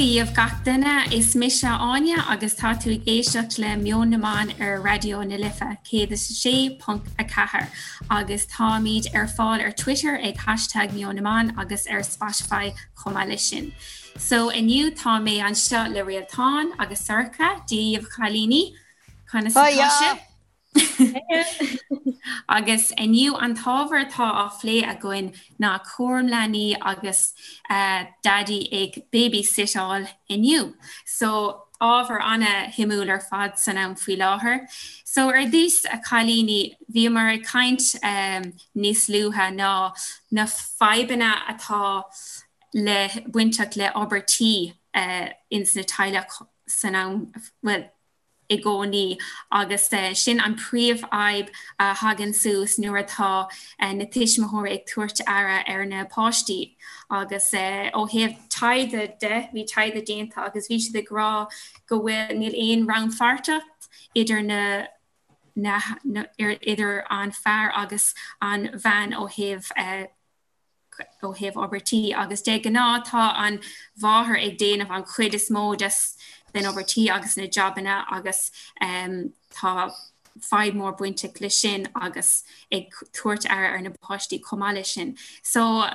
Dia dhaoibh gach duine, is mise Áine agus tá tú ag éisteacht le Meon na mBan ar Raidió na Life 106.4 agus táimid ar fáil ar Twitter ag hashtag Meon na mBan agus ar Spotify chomh maith leis sin. So inniu tá mé anseo le Réaltán agus Sorcha, Dia dhaoibh a chailíní, conas atá sibh? Agus inniu an t-ábhar atá á phlé againn ná cúram leanaí agus daidí ag babysitteáil inniu. So ábhar ana-shuimiúil ar fad san am faoi láthair. So ar dtús a chailíní, bhíomar ag caint níos luaithe ná na fadhbanna atá le bainteach le obair tí ins na teaghlaigh san am, bhuel, i gcónaí agus sin an príomhfhadhb a thagann suas nuair atá na tuismitheoirí ag tabhairt aire ar na páistí agus ó thaobh taighde de, bhí taighde déanta agus bhí siad ag rá go bhfuil, níl aon rannpháirteacht idir na na idir an fear agus an bhean ó thaobh ó thaobh obair tí agus de ghnáth tá an mháthair ag déanamh an chuid is mó des den obair tí agus na jabanna agus tá fadhb mór bainteach leis sin agus ag tabhairt aire ar na páistí chomh maith leis sin. So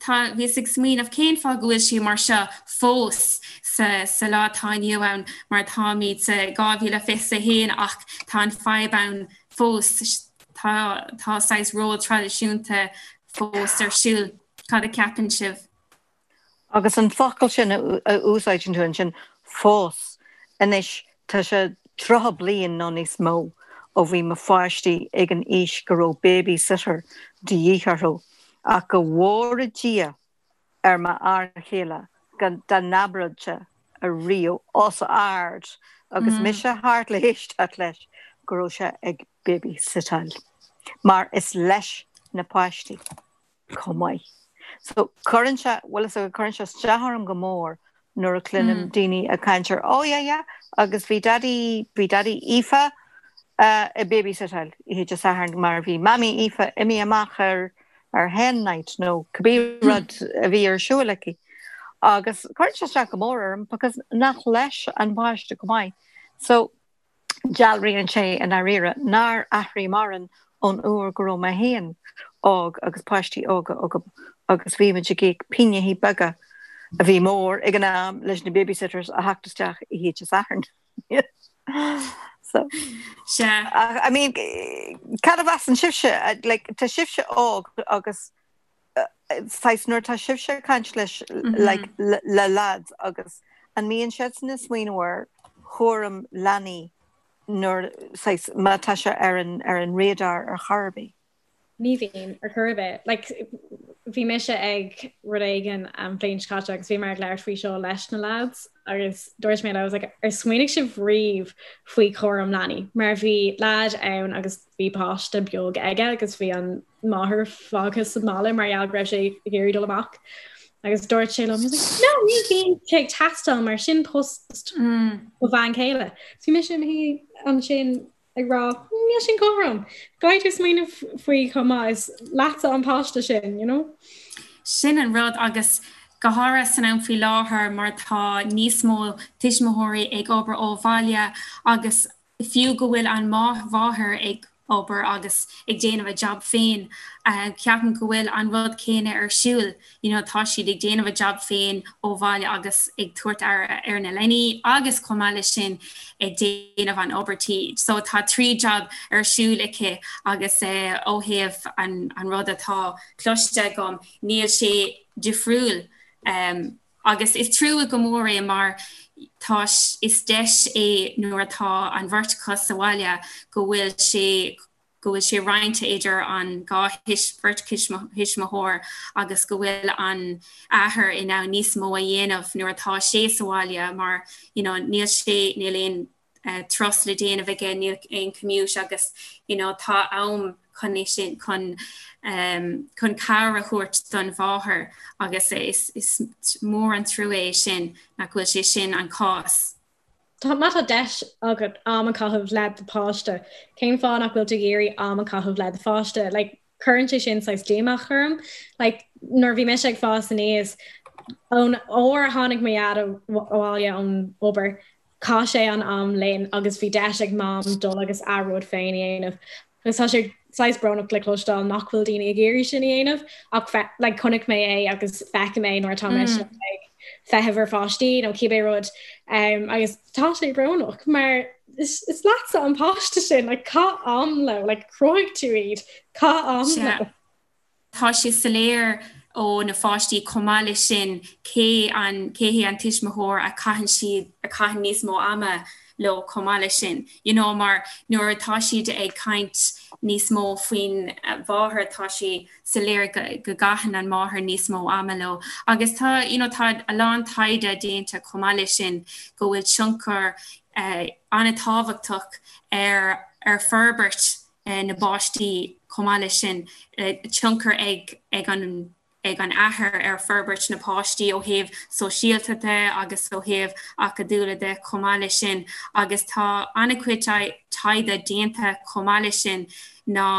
tá bhíos ag smaoineamh cén fáth go bhfuil sé mar seo fós sa sa lá atá inniu ann mar táimid sa 2021 ach tá an fadhb ann fós tá tá saghas ról traidisiúnta fós ar siúl. Cad a cheapann sibh? Agus an focal sin a úsáideann tú ansin, fós, anois tá sé 30 bliain nó níos mó ó bhí mo pháistí ag an aois go raibh babysitter de dhíth orthu ach go bhfóire Dia ar m'fhear chéile dá n-abródh sé ariamh os ard agus mise thart le héisteacht leis go raibh sé ag babysitteáil mar is leis na páistí chomh maith. So cuireann sé, bhfuil fhios agat, cuireann sé isteach orm go mór nuair a chluinim daoine ag caint ar oh yeah yeah agus bhí daidí, bhí daidí Aoife ag babysitteáil oíche Dé Sathairn mar bhí mamaí Aoife imithe amach ar ar hen night nó cibé rud a bhí ar siúl aici. Agus cuireann sé isteach go mór orm because nach leis an bpáiste chomh maith. So dealraíonn sé i ndáiríre nár athraigh mórán ón uair go raibh mé féin óg agus páistí óga agam agus bhí muid ag íoc pingintí beaga a bhí mór ag an am leis na babysitters a theacht isteach oíche Dé Sathairn. So, Sea. I mean, cad a mheasann sibhse? Like, tá sibhse óg agus saghas nuair atá sibhse ag caint leis like, le lads agus an mbíonn siadsan ag smaoineamh ar chúram leanaí nuair saghas má tá sé ar an ar an radar ar chor ar bith? Ní bhíonn, ar chor ar bith. Like, bhí mise ag rud éigin an bhliain seo caite agus bhí mé ag labhairt faoi seo leis na lads agus dúirt mé leo, I was like, ar smaoinigh sibh riamh faoi chúram leanaí? Mar bhí lad ann agus bhí páiste beag aige agus bhí an máthair fágtha sa mbaile mar gheall go raibh sé ag iarraidh dul amach. Agus dúirt sé liom, no, ní bhíonn sé ag teastáil mar sin post mo bhean chéile. So bhí mise i mo shuí ansin ag rá, níl sin cothrom. Caithfidh tú smaoineamh faoi chomh maith is leatsa an páiste sin, you know? Sin an rud agus go háirithe san am faoi láthair mar tá níos mó tuismitheoirí ag obair ó bhaile agus Fiú go bhfuil an mháthair ag obair agus ag déanamh a jab féin, ceapaim go bhfuil an rud céanna ar siúl, you know tá siad ag déanamh a jab féin ó bhaile agus ag tabhairt aire ar na leanaí agus chomh maith leis sin ag déanamh an obair tí. So tá 3 jab ar siúl aici agus ó thaobh an rud atá cloiste agam níl sé difriúil. Agus is trua go mór é mar tá, is deis é nuair atá an bheirt acu sa bhaile go bhfuil sé, go bhfuil sé roinnte idir an dhá bheirt thuismitheoir agus go bhfuil an athair in ann níos mó a dhéanamh nuair atá sé sa bhaile mar you know níl sé, níl aon turas le déanamh aige, níl aon commute agus you know tá am chun é sin, chun chun cabhair a thabhairt don mháthair agus is is mór an trua é sin nach bhfuil sé sin an cás. Tá má tá deis agat am a chaitheamh le do pháiste, cén fáth nach bhfuil tú ag iarraidh am a chaitheamh le do pháiste? Like, cuireann sé sin saghas díomá orm. Like, nuair a bhí mise ag fás aníos, Ón uair a tháinig mo dhaid abhaile ón obair, chaith sé an am linn agus bhí deis ag Mam dul agus a rud féin a dhéanamh. Agus tá sé saghas brónach le cloisteáil nach bhfuil daoine ag iarraidh sin a dhéanamh ach like chonaic mé é agus feicim é nuair atá mise ag feitheamh ar pháistí nó cibé rud um, agus tá sé brónach mar is, is leatsa an páiste sin like, caith am leo, like, chruthaigh tú iad, caith am leo. Tá sé soiléir ó na pháistí chomh maith leis sin cé an cé hé an tuismitheoir a chaitheann siad a chaitheann níos mó ama leo chomh maith leis sin. You know mar nuair atá siad ag caint níos mó faoin mháthair tá sé soiléir go go gcaitheann an máthair níos mó ama leo. Agus tá you know tá a lán taighde déanta chomh maith leis sin go bhfuil tionchar eh, an-tábhachtach ar ar forbairt na bpáistí chomh maith leis sin, tionchar ag ag an ag an athair ar forbairt na páistí ó thaobh sóisialta de agus ó thaobh acadúla de chomh maith leis sin agus tá an-chuid taighde déanta chomh maith leis sin ná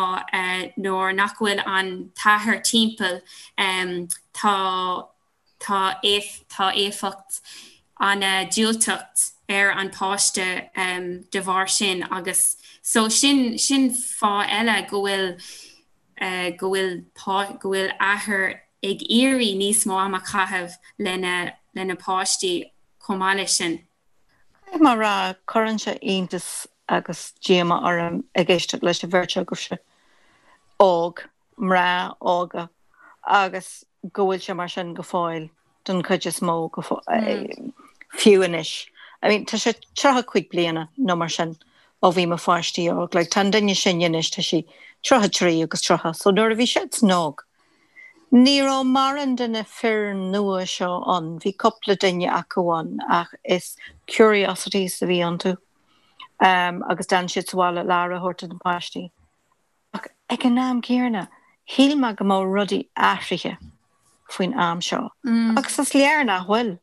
nuair nach bhfuil an t-athair timpeall tá tá tá éifeacht an-diúltach ar an páiste de bharr sin agus so sin sin fáth eile go bhfuil go bhfuil go bhfuil athair ag iarraidh níos mó ama a chaitheamh lena lena páistí chomh maith leis sin. Caithfidh mé a rá, cuireann sé iontas agus díomá orm ag éisteacht leis an bheirt agaibhse óg, mná óga agus go bhfuil sé mar sin go fóill don chuid is mó go fiú anois. I mean tá sé 35 bliana nó mar sin ó bhí mo pháistí óg, like tá an duine is sine anois tá sí 33 agus 30 so nuair a bhí siadsan óg ní raibh mórán de na fir nua seo ann, bhí cúpla duine acu ann ach is curiosities a bhí iontu um, agus d'fhan siad sa bhaile le aire a thabhairt do na páistí. Ach ag an am céanna, shíl mé go mbeadh rudaí athraithe faoin am seo. Agus is léir nach bhfuil.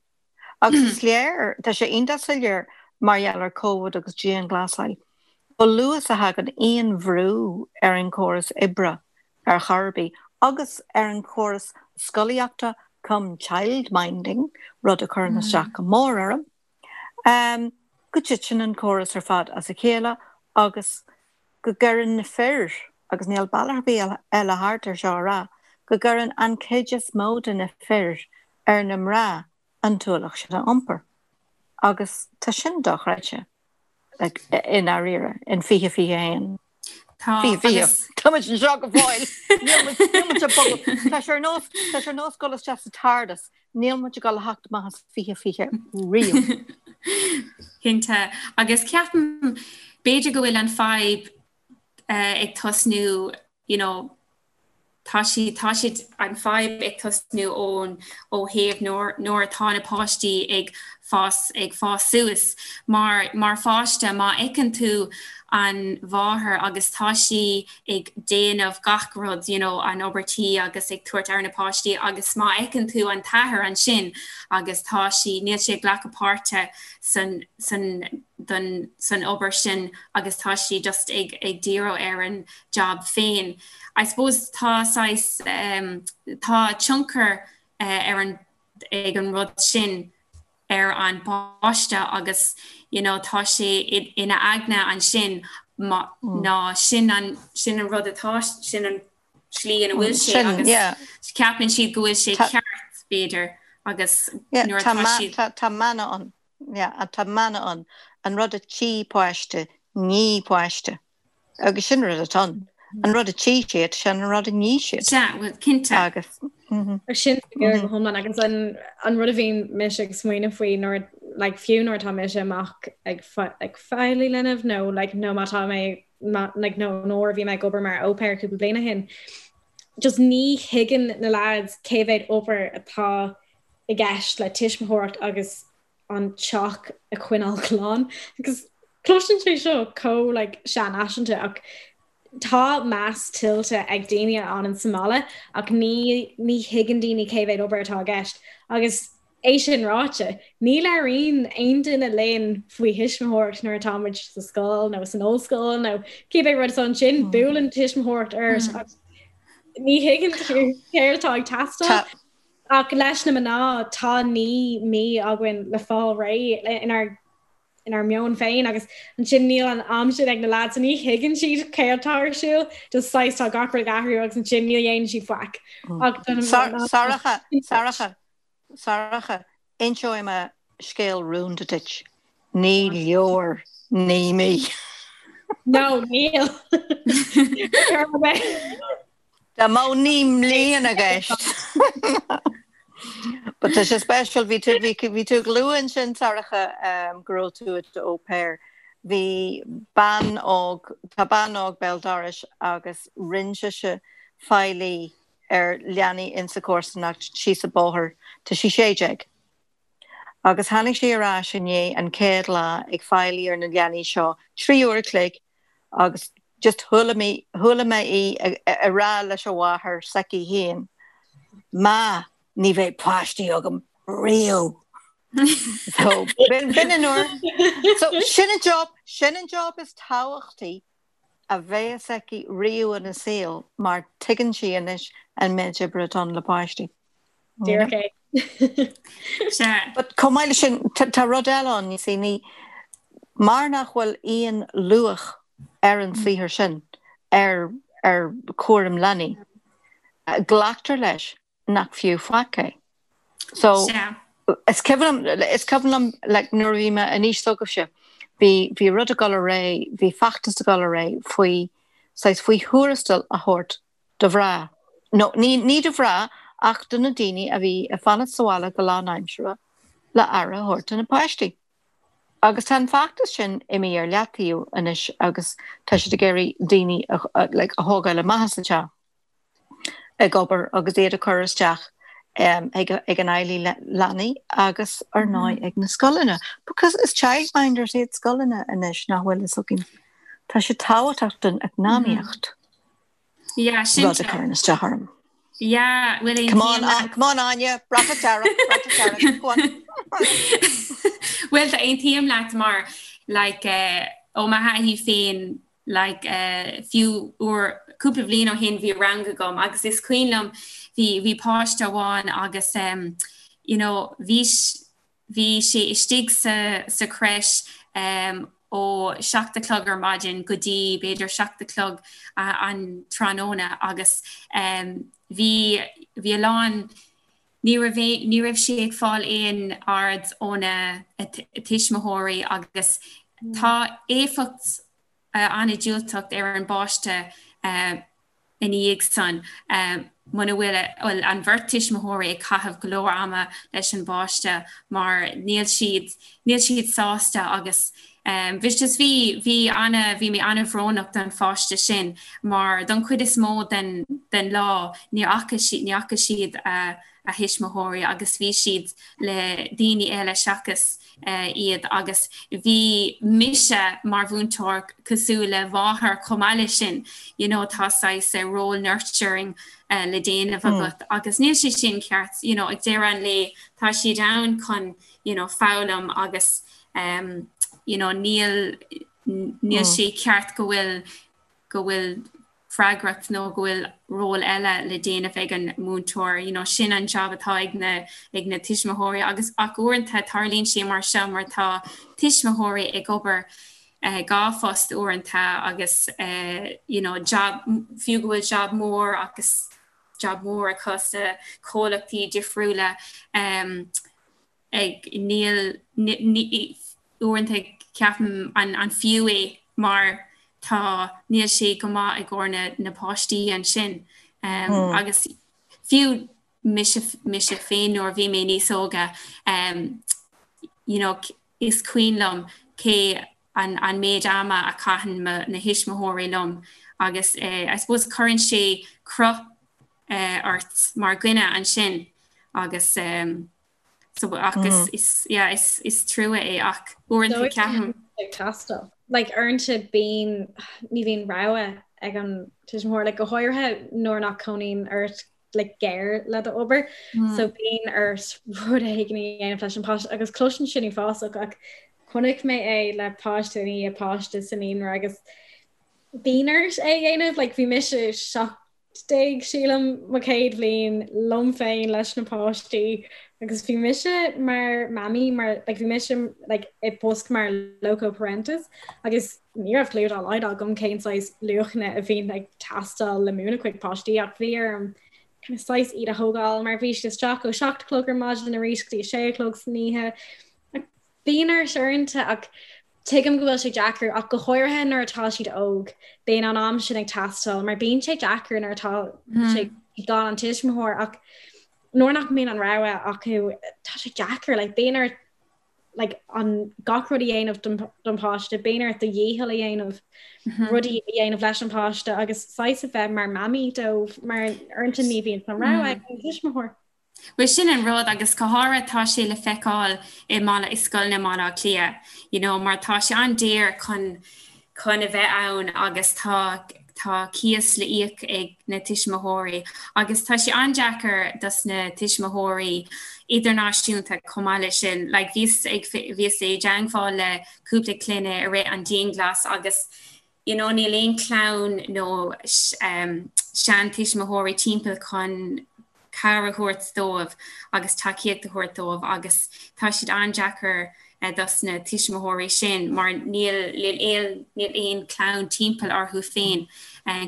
Agus is léir, tá sé iontach soiléir mar gheall ar Covid agus dianghlasáil, chomh luath is a thagann aon bhrú ar an chóras oibre ar chor ar bith, agus ar an chóras scolaíochta cum childminding, rud a chuireann isteach go mór orm, go dtiteann an córas ar fad as a chéile agus go gcuireann na fir, agus níl bealach ar bith eile thart ar seo a rá, go gcuireann an chuid is mó de na fir ar na mná an t-ualach sin a iompar. Agus tá sin dochreidte, like, i ndáiríre, in 2021. Tá, agus. Tá muid anseo go fóill! Níl muid, níl muid ag bogadh. Tá sé ar nós, tá sé ar nós dul isteach sa TARDIS, níl muid ag dul a theacht amach as 2020 riamh. Cinnte. Agus ceapaim, b'fhéidir go bhfuil an fadhb ag tosnú, you know, tá sí, tá siad, an fadhb ag tosnú ón, ó thaobh nuair, nuair atá na páistí ag fás, ag fás suas. Mar, mar pháiste, má fheiceann tú an mháthair agus tá sí ag déanamh gach rud, you know, an obair tí agus ag tabhairt aire na páistí agus má fheiceann tú an t-athair ansin agus tá sí, níl sé ag glacadh páirte san, san, don, san obair sin agus tá sí just ag, ag díriú ar an job féin. I suppose tá saghas, um, tá tionchar uh, ar an, ag an rud sin ar an bpáiste agus you know tá sé ina aigne ansin ná sin an sin an rud atá sin an slí ina bhfuil sé agus ceapann siad go bhfuil sé ceart b'fhéidir agus nuair atá siad Tá mana ann tá mana ann an rud a tchí páiste ní páiste. Agus sin rud atá ann. An rud a tchí siad, sin an rud a ní siad. Sea, bhuel, cinnte. Agus. Sin go hiomlán agus an an rud a bhíonn mise ag smaoineamh faoi nuair like, fiú nuair atá mise amach ag ag feighlí linbh nó like, nó má tá mé like, nó nuair a bhí mé ag obair mar au pair cúpla bliain ó shin. Just ní thuigeann na lads cé mhéad obair atá i gceist le tuismitheoireacht agus an teach a choinneáil glan agus cloiseann sé seo chomh like seanfhaiseanta ach tá meas tuillte ag daoine a fhanann sa mbaile ach ní ní thuigeann daoine cé mhéad obair atá i gceist agus é sin ráite ní labhraíonn aon duine linn faoi thuismitheoireacht nuair atá muid sa scoil nó san ollscoil nó cibé rud is ansin buaileann tuismitheoireacht ort agus ní thuigeann tú céard atá ag teastáil. Ach leis na mná tá 9 mí againn le fáil réidh inár inár meon féin agus ansin níl an am sin ag na lads so ní thuigeann siad céard atá ar siúl, just saghas tá gach rud ag athrú agus ansin ní dhéanann siad faic. Ach do na mná. Sorcha, Sorcha, Sorcha, inseoidh mé scéal rúnda duit. Ní leor 9 mí. No, níl. Dá mbeadh 9 mbliana i gceist. But tá sé special, bhí tú, bhí, bhí tú ag lua ansin, Sorcha, go raibh tú i do au pair. Bhí bean óg, tá bean óg béal dorais agus rinne sise faillí ar leanaí insa chomharsanacht síos an bóthar, tá sí 16. Agus tháinig sí ar ais inné an chéad lá ag faillí ar na leanaí seo 3 uair a chloig agus just chuala mé, chuala mé í ag rá leis a mháthair s'aici féin, Ma, ní bheidh páistí agam riamh. So, b'in an uair. So, sin an job, sin an job is tábhachtaí a bheas aici riamh ina saol mar tuigeann sí anois an méid oibre atá ann le páistí. Díreach é. Sea. But chomh maith leis sin, tá rud eile ann, you see, ní, mar nach bhfuil aon luach ar an saothar sin, ar, ar chúram leanaí, glactar leis nach fiú faic é. So, Sea. is cuimhin liom, is cuimhin liom, like, nuair a bhí mé in aois s'agaibhse, bhí, bhí rud ag dul ar aghaidh, bhí feachtas ag dul ar aghaidh faoi, saghas, faoi thuarastal a thabhairt do mhná, nó ní, ní do mhná ach do na daoine a bhí ag fanacht sa bhaile go lánaimseartha le aire a thabhairt do na páistí. Agus tá an feachtas sin imithe ar leataobh anois agus tá siad ag iarraidh daoine a, like, a thógáil amach as an teach ag obair agus iad a chur isteach ag, ag an fheighlí leanaí agus ar ndóigh ag na scoileanna. Because is childminders iad scoileanna anois nach bhfuil fhios againn. Tá sé tábhachtach don eacnamaíocht. Yeah, sin Rud a chuireann isteach orm. Yeah, bhfuil Come on, uh, come on Áine, bratach dearg, bratach dearg, go on. Bhuel, tá aontaím leat mar like, uh, ó mo thaithí féin like, uh, fiú uair cúpla bliain ó shin bhí rang agam agus is cuimhin liom bhí bhí páiste amháin agus um, you know, bhí Bhí sé istigh sa sa crèche ó 7 a chlog ar maidin go dtí b'fhéidir 7 a chlog an tráthnóna agus bhí bhí a lán ní raibh ní raibh sé ag fáil aon aird óna tuismitheoirí agus tá éifeacht an-diúltach ar an bpáiste ina dhiaidh san, muna bhfuil, bhuel, an bheirt tuismitheoirí ag caitheamh go leor ama leis an bpáiste mar níl siad, níl siad sásta agus bhí just bhí, bhí ana, bhí mé ana-bhrónach don pháiste sin mar don chuid is mó den, den lá ní fhaca siad, ní fhaca siad a, a thuismitheoirí agus bhí siad le daoine eile seachas iad agus bhí mise mar mhúinteoir cosúil le máthair chomh maith leis sin, you know tá saghas role nurturing le déanamh agat agus níl sé sin ceart, you know ag deireadh an lae tá siad ann chun you know foghlaim agus um, you know níl níl sé ceart go bhfuil go bhfuil freagracht nó go bhfuil ról eile le déanamh ag an múinteoir, you know, sin an job atá ag na, ag na tuismitheoirí agus ach uaireanta tarlaíonn sé mar seo mar tá tuismitheoirí ag obair eh, 2 phost uaireanta agus eh, you know, job, fiú go bhfuil job mór agus job mór acu sa comhlachtaí difriúla um, ag níl uaireanta ceapaim an an fiú é mar tá níl sé go maith i gcomhair na na páistí ansin um, agus fiú mise mise féin nuair a bhí mé níos óga um, you know, is cuimhin liom cé an an méid ama a chaitheann mo na thuismitheoirí liom agus eh, I suppose cuireann sé cruth eh, ort mar dhuine ansin agus um, So ach is, is, yeah, is, is trua é ach uaireanta ceapaim. Ag teastáil. Like uaireanta bíonn, ní bhíonn rogha ag an tuismitheoir, like go háirithe nuair nach cónaíonn ort like gar le do obair. Mm. So bíonn ort rud éigin a dhéanamh leis an páiste agus cloiseann sin uafásach ach chonaic mé é le páiste i ndiaidh páiste sa naíonra agus bíonn ort é a dhéanamh, like bhí mise 7. Sílim mo chéad bhliain liom féin leis na páistí agus bhí mise mar mamaí mar like, bhí mise like, i bpost mar loco parentis agus ní raibh clue dá laghad agam cén saghas luachanna a bhíonn ag teastáil le múineadh chuig páistí ach bhí orm kind of saghas iad a thógáil mar bhí siad isteach ó 7 a chlog ar maidin arís go dtí 6 a chlog san oíche. Bíonn ort uaireanta ach tuigim go bhfuil sé deacair ach go háirithe nuair atá siad óg, bíonn an am sin ag teastáil mar bíonn sé deacair nuair atá sé gan an tuismitheoir ach nuair nach mbíonn an rogha acu tá sé deacair like bíonn ort like an gach rud a dhéanamh don don páiste, bíonn ort do dhícheall a dhéanamh, rudaí a dhéanamh leis an páiste agus saghas a bheith mar mamaí dóibh mar uaireanta ní bhíonn an rogha ag an tuismitheoir. Bhuel sin an rud agus go háirithe tá sé le feiceáil i mBaile, i scoileanna i mBaile Átha Cliath, you know, mar tá sé an-daor chun, chun a bheith ann agus tá, tá cíos le íoc ag na tuismitheoirí agus tá sé an-deacair dos na tuismitheoirí idirnáisiúnta chomh maith leis sin. Like bhíos ag, bhíos i dteangmháil le cúpla clainne i rith an dianghlas agus you know níl aon chlann nó seantuismitheoirí timpeall chun cabhair a thabhairt dóibh agus tacaíocht a thabhairt dóibh agus tá siad an-deacair dos na tuismitheoirí sin mar níl níl níl aon chlann timpeall orthu féin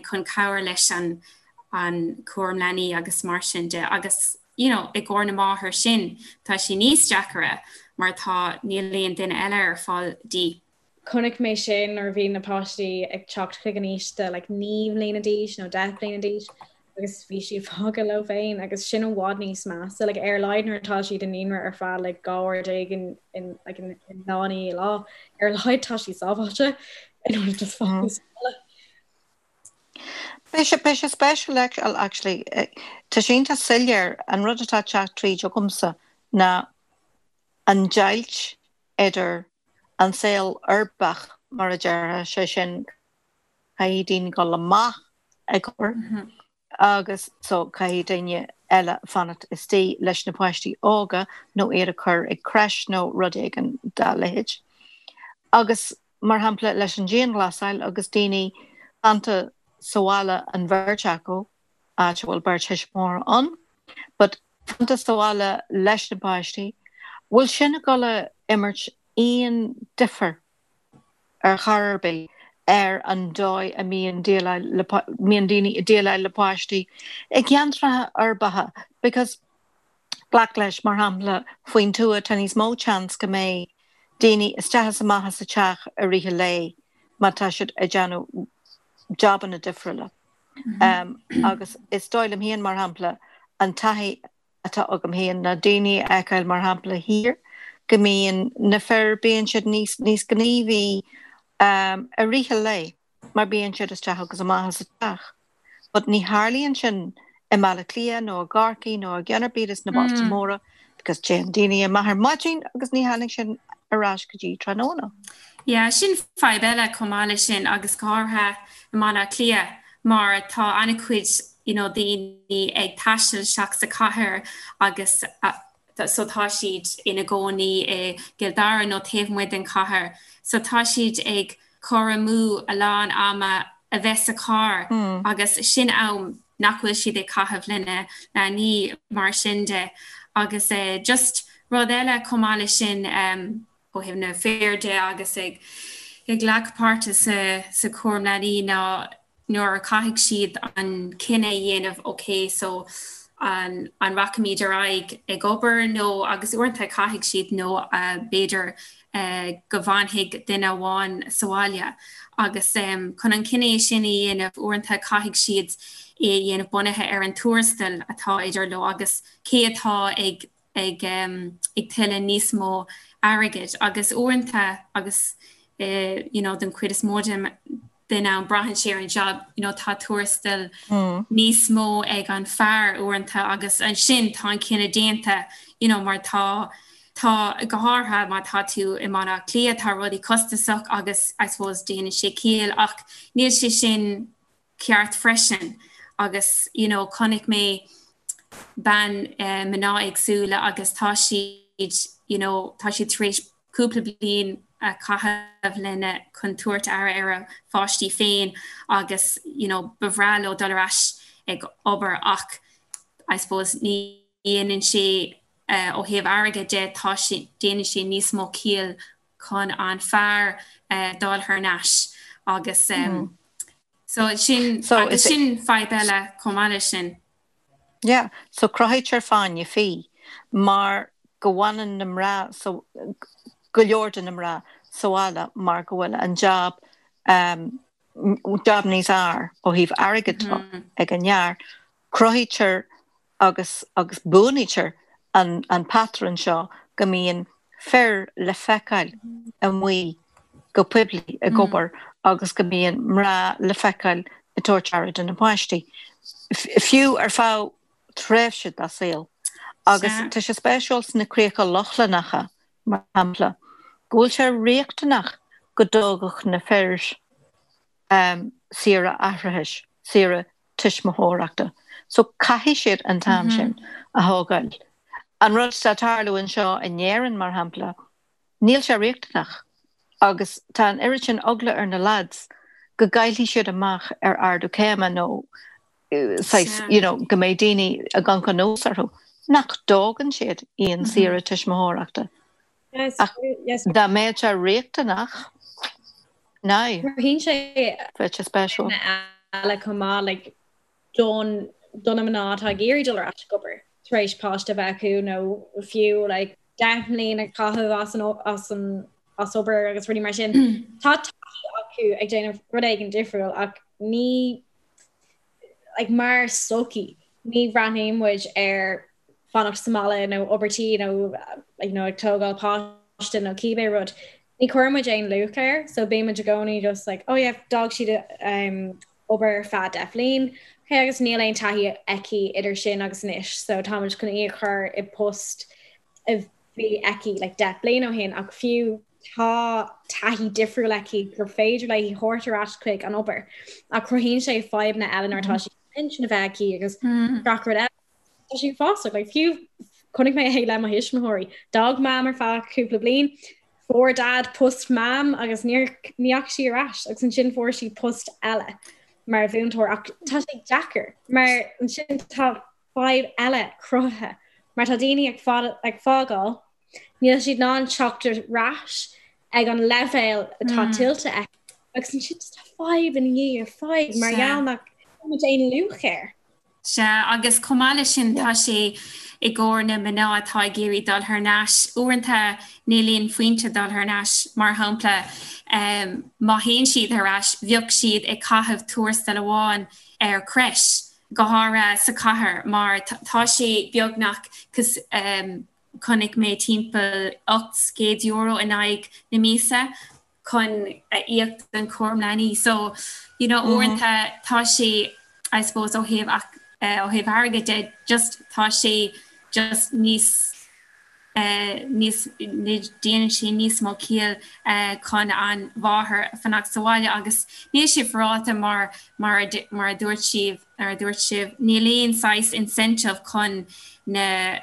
chun cabhair leis an an cúram leanaí agus mar sin de agus you know i gcomhair na máthar sin tá sé níos deacaire mar tá níl aon duine eile ar fáil di. Chonaic mé sin nuair a bhí na páistí ag teacht chuig an aois de like 9 mbliana d'aois nó 10 mbliana d'aois agus bhí siad fágtha leo féin agus sin i bhfad níos measa like ar a laghad nuair atá siad i naíonra ar feadh like 12 uair in, in, like, in, in lá i ndiaidh lá ar a laghad tá siad sábháilte in ionad just fágtha sa bhaile. Beidh sé, beidh sé spéisiúil actually, tá sé iontach soiléir, an rud atá ag teacht tríd agamsa ná an deighilt idir an saol uirbeach, mar a déarfá, sé sin, caithfidh daoine dul amach ag obair agus so caithfidh daoine eile fanacht istigh leis na páistí óga nó iad a chur ag crèche nó rud éigin dá leithéid. Agus, mar shampla, leis an dianghlasáil agus daoine fanta sa bhaile an bheirt acu, áit a bhfuil beirt thuismitheoir ann, but fanta sa bhaile leis na páistí, bhfuil sin ag dul a imirt aon difear ar chor ar bith ar an dóigh a mbíonn déileáil le, mbíonn daoine ag déileáil le páistí i gceantracha uirbeacha because glac leis, mar shampla, faoin tuath tá níos mó chance go mbeidh daoine isteach is amach as an teach i rith an lae má tá siad ag déanamh jabanna difriúla. Agus is dóigh liom féin, mar shampla, an taithí atá agam féin ná daoine a fheiceáil, mar shampla, thiar, go mbíonn na fir, bíonn siad níos, níos gníomhaí i rith an lae mar bíonn siad isteach agus amach as an teach. But ní tharlaíonn sin i mBaile Átha Cliath nó i gCorcaigh nó i gceann ar bith des na bailte móra because téann daoine amach ar maidin agus ní thagann siad ar ais go dtí tráthnóna. Yeah, sin fadhb eile chomh maith leis sin agus go háirithe i mBaile Átha Cliath mar tá an-chuid you know daoine ag taisteal isteach sa chathair agus so tá siad ina gcónaí i gCill Dara nó taobh amuigh den chathair so tá siad ag cur amú a lán ama a bheith sa charr agus sin am nach bhfuil siad ag caitheamh lena leanaí mar sin de agus just rud eile chomh maith leis sin ó thaobh na fir de agus ag ag glacadh páirte sa sa chúram leanaí ná nuair a chaithfidh siad an cinneadh a dhéanamh ok so an an rachaimid ar aghaidh ag obair nó agus uaireanta caithfidh siad nó b'fhéidir go bhfanfaidh duine amháin sa bhaile agus chun an cinneadh sin a dhéanamh uaireanta caithfidh siad é a dhéanamh bunaithe ar an tuarastal atá idir leo agus cé atá ag ag ag tuilleadh níos mó airgid agus uaireanta agus you know den chuid is mó den den am braitheann sé ar an job you know tá tuarastal níos mó ag an fear uaireanta agus ansin tá an cinneadh déanta you know mar tá tá go háirithe má tá tú i mBaile Átha Cliath tá rudaí costasach agus I suppose déanann sé ciall ach níl sé sin ceart freisin agus you know chonaic mé bean mná éagsúla agus tá siad you know tá siad tar éis cúpla bliain a chaitheamh lena chun tabhairt aire ar a pháistí féin agus you know ba bhreá leo dul ar ais. ag obair ach I suppose ní dhéanann sé ó thaobh airgid de tá sé déanann sé níos mó ciall chun an fear dul thar n-ais agus so sin agus sin fadhb eile chomh maith leis sin. Yeah, so cruthaítear fáinne fí mar go bhfanann na mná so go leor de na mná sa bhaile mar go bhfuil an jab um, jab níos fhearr ó thaobh airgid de ag an fhear, cruthaítear agus agus buanaítear an an patrún seo go mbíonn fir le feiceáil amuigh go poiblí ag obair agus go mbíonn mná le feiceáil ag tabhairt aire do na páistí, fiú ar feadh tréimhse dá saol. Agus tá sé spéisiúil sna Críocha Lochlannacha, mar shampla, go bhfuil sé riachtanach go dtógfadh na fir saoire atharthachais, saoire tuismitheoireachta. So caithfidh siad an t-am sin a thógáil. An rud atá ag tarlú anseo in Éirinn, mar shampla, níl sé riachtanach agus tá an oiread sin eagla ar na lads go gcaillfidh siad amach ar ardú céime nó saghas, you know, go mbeidh daoine ag amharc anuas orthu, nach dtógann siad aon saoire tuismitheoireachta. Ach dá mbeadh sé riachtanach, now, Cruthaíonn sé bheadh sé spéisiúil. eile chomh maith, like, don do na mná atá ag iarraidh dul ar ais ag obair tar éis páiste a bheith acu nó fiú like 10 mbliana a chaitheamh as an as an as obair agus rudaí mar sin. Tá taithí acu ag déanamh rud éigin difriúil ach ní like mar sochaí ní bhreathnaíonn muid ar fanacht sa mbaile nó obair tí nó you know ag tógáil páiste nó cibé rud. Ní chuireann muid aon luach air so bíonn muid i gcónaí just like oh yeah d'fhág siad um, obair ar feadh 10 bhliain okay agus níl aon taithí aici idir sin agus anois so táimid chun í a chur i post a bhí aici like 10 bliain ó shin ach fiú tá taithí difriúil aici gur féidir léi thabhairt ar ais chuig an obair ach cruthaíonn sé fadhbanna eile nuair atá sí pinsean a bheith aici agus gach rud eile. Tá sé uafásach, like, fiú chonaic mé é le mo thuismitheoirí. D'fhág Mam ar feadh cúpla bliain, fuair Dad post Mam agus níor ní dheachaigh sí ar ais agus ansin fuair sí post eile mar mhúinteoir ach tá sé deacair mar ansin tá fadhb eile cruthaithe mar tá daoine ag ag fágáil níl siad in ann teacht ar ais ag an leibhéal atá tuillte acu agus ansin tá fadhb ina dhiaidh fadhb mar gheall nach bhfuil aon luach air. Sea, agus chomh maith leis sin tá sé i gcomhair na mná atá ag iarraidh dul thar n-ais. Uaireanta níl aon phointe dul thar n-ais. Mar shampla, má théann siad thar ais, bheadh siad ag caitheamh tuarastal amháin ar crèche, go háirithe sa chathair, mar tá sé beagnach chonaic mé timpeall €800 in aghaidh na míosa. chun a íoc don chúram leanaí. So, you know, uaireanta tá sé, I suppose, ó thaobh ó thaobh airgid de, just tá sé just níos níos déanann sé níos mó ciall chun an mháthair fanacht sa bhaile agus níl sé féaráilte mar mar mar a dúirt sibh mar a dúirt sibh níl aon saghas incentive chun na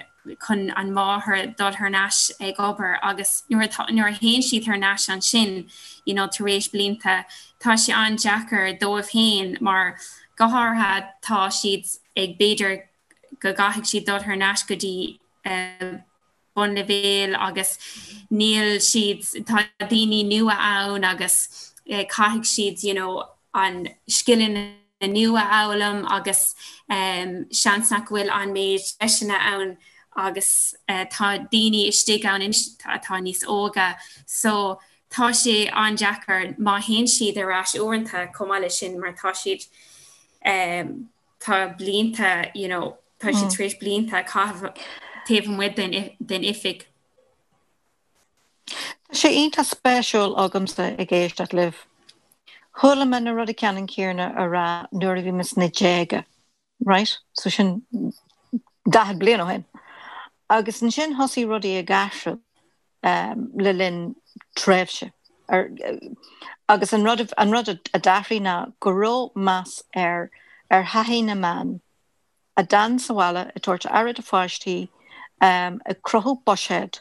chun an mháthair dul thar n-ais ag obair agus nuair atá, nuair a théann siad thar n-ais ansin you know tar éis blianta, tá sé an-deacair dóibh féin mar go háirithe tá siad ag, b'fhéidir go gcaithfidh siad dul thar n-ais go dtí bunleibhéal agus níl siad, tá daoine nua ann agus caithfidh siad you know an scileanna nua a fhoghlaim agus seans nach bhfuil an méid deiseanna ann agus tá daoine istigh ann anois atá níos óige so tá sé an-deacair má théann siad ar ais uaireanta chomh maith leis sin mar tá siad tá blianta you know tá siad tar éis blianta a chaitheamh taobh amuigh den oifig. Tá sé iontach spéisiúil agamsa ag éisteacht libh. Chuala mé na rudaí ceannann céanna á rá nuair a bhí mé sna déaga, right? So sin 40 bliain ó shin. Agus ansin thosaigh rudaí ag athrú le linn tréimhse. Agus an rud an rud a d'athraigh ná go raibh meas ar ar thaithí na mban. a d'fhan sa bhaile ag tabhairt aire do pháistí, ag cruthú buiséad,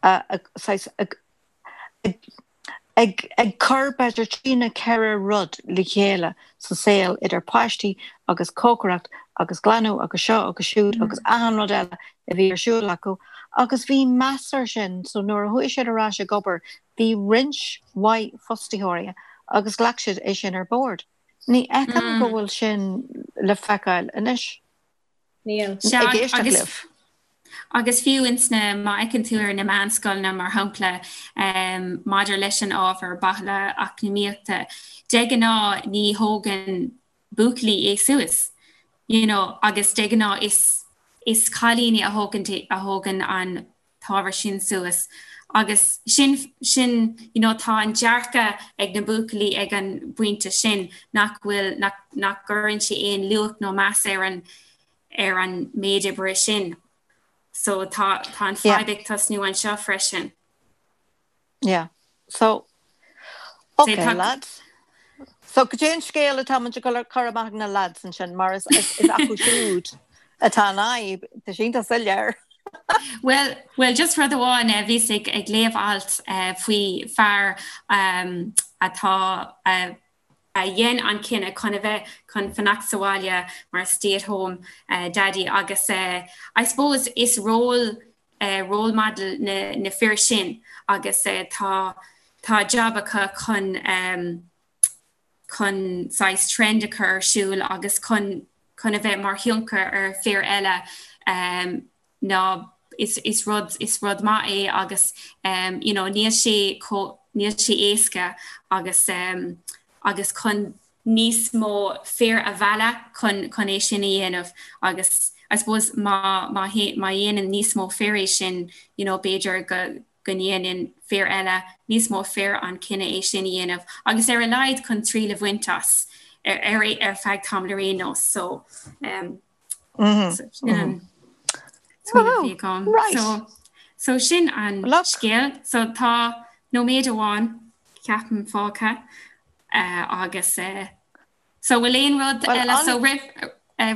saghas, ag Ag ag cur b'fhéidir trí nó 4 rud le chéile sa saol idir páistí agus cócaireacht agus glanadh agus seo agus siúd agus achan rud eile a bhí ar siúl acu agus bhí meas ar sin so nuair a chuaigh siad ar ais ag obair bhí roinnt mhaith fostaitheoirí agus ghlac siad é sin ar bord. Ní fheicim go bhfuil sin le feiceáil anois. Níl. Sea, Ag éisteacht agus libh. Agus fiú ins na, má fheiceann tú ar na meánscoileanna mar shampla, maidir leis an ábhar baile eacnamaíochta, de ghnáth ní thógann buachaillí é suas, you know, agus de ghnáth is, is cailíní a thógann, a thógann an t-ábhar sin suas. Agus sin, sin, you know, tá an dearcadh ag na buachaillí ag an bpointe sin nach bhfuil, nach, nach gcuireann sé aon luach nó meas ar an, ar an méid oibre sin. So tá tá an fadhb ag tosnú anseo freisin. Yeah. So okay tá... lads. So cad é an scéal atá muid ag cur amach ag na lads ansin mar is is acu siúd atá an fhadhb tá sin tá soiléir. Well, well just rud amháin eh, bhíos ag ag léamh alt eh, faoi fear um, atá uh, a dhein an cinneadh chun a bheith chun fanacht sa bhaile mar stay at home daddy agus I suppose is role role model na na fir sin agus tá tá job acu chun chun saghas trend a chur ar siúl agus chun chun a bheith mar thionchar ar fir eile ná is is rud is rud maith é agus um you know níl sé chomh níl sé éasca agus um agus chun níos mó fir a mhealladh chun chun é sin a dhéanamh agus I suppose má má má dhéanann níos mó fir é sin you know b'fhéidir go go ndéanann fir eile níos mó fir an cinneadh é sin a dhéanamh agus ar a laghad chun triail a bhaint as ar ar ar feadh tamaill ar aon nós so um So sin an scéal. So tá nóiméad amháin ceapaim fágtha agus so bhfuil aon rud eile so roimh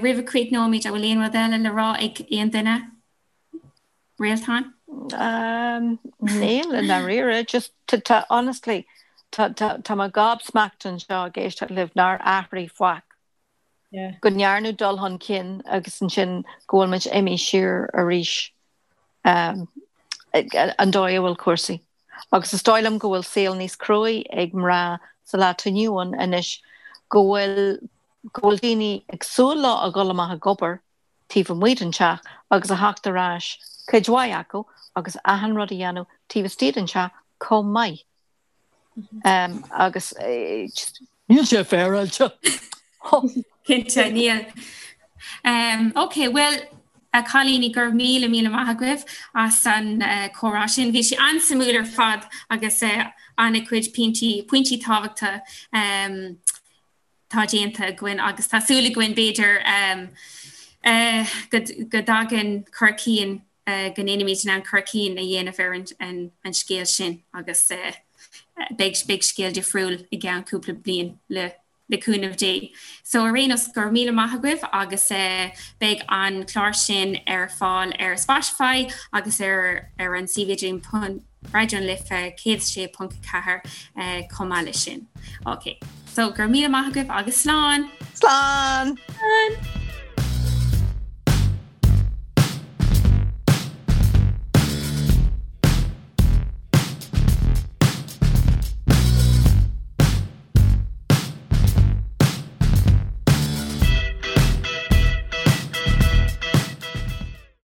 roimh a chríochnóimid an bhfuil aon rud eile le rá ag aon duine? Réaltán? Níl i ndáiríre, just tá honestly tá tá mé gobsmacked anseo ag éisteacht libh nár athraigh faic. go ndearnadh dul chun cinn agus ansin go bhfuil muid imithe siar arís an dóigh a bhfuil cúrsaí. Agus is dóigh liom go bhfuil saol níos cruaí ag mná sa lá atá inniu ann anois, go bhfuil go bhfuil daoine ag súil leo a dhul amach ag obair taobh amuigh den teach agus a theacht ar ais, cuid mhaith acu, agus achan rud a dhéanamh taobh istigh den teach chomh maith. Agus just níl sé féaráilte. Cinnte, níl. Ok, bhuel, a chailíní, go raibh míle míle maith agaibh as an comhrá sin. Bhí sé an-suimiúil ar fad agus an-chuid pointí, pointí tábhachtacha tá déanta againn agus tá súil againn b'fhéidir go dtagann cur cinn go ndéanfaimid in ann cur cinn a dhéanamh ar an scéal sin agus beidh beidh scéal difriúil i gceann cúpla bliain le le cúnamh Dé. So ar aon nós, go raibh míle maith agaibh agus beidh an clár sin ar fáil ar Spotify agus ar ar an suíomh idirlín Raidió na Life 106.4 chomh maith leis sin. Ok, so go raibh míle maith agaibh agus slán! Slán! Slán!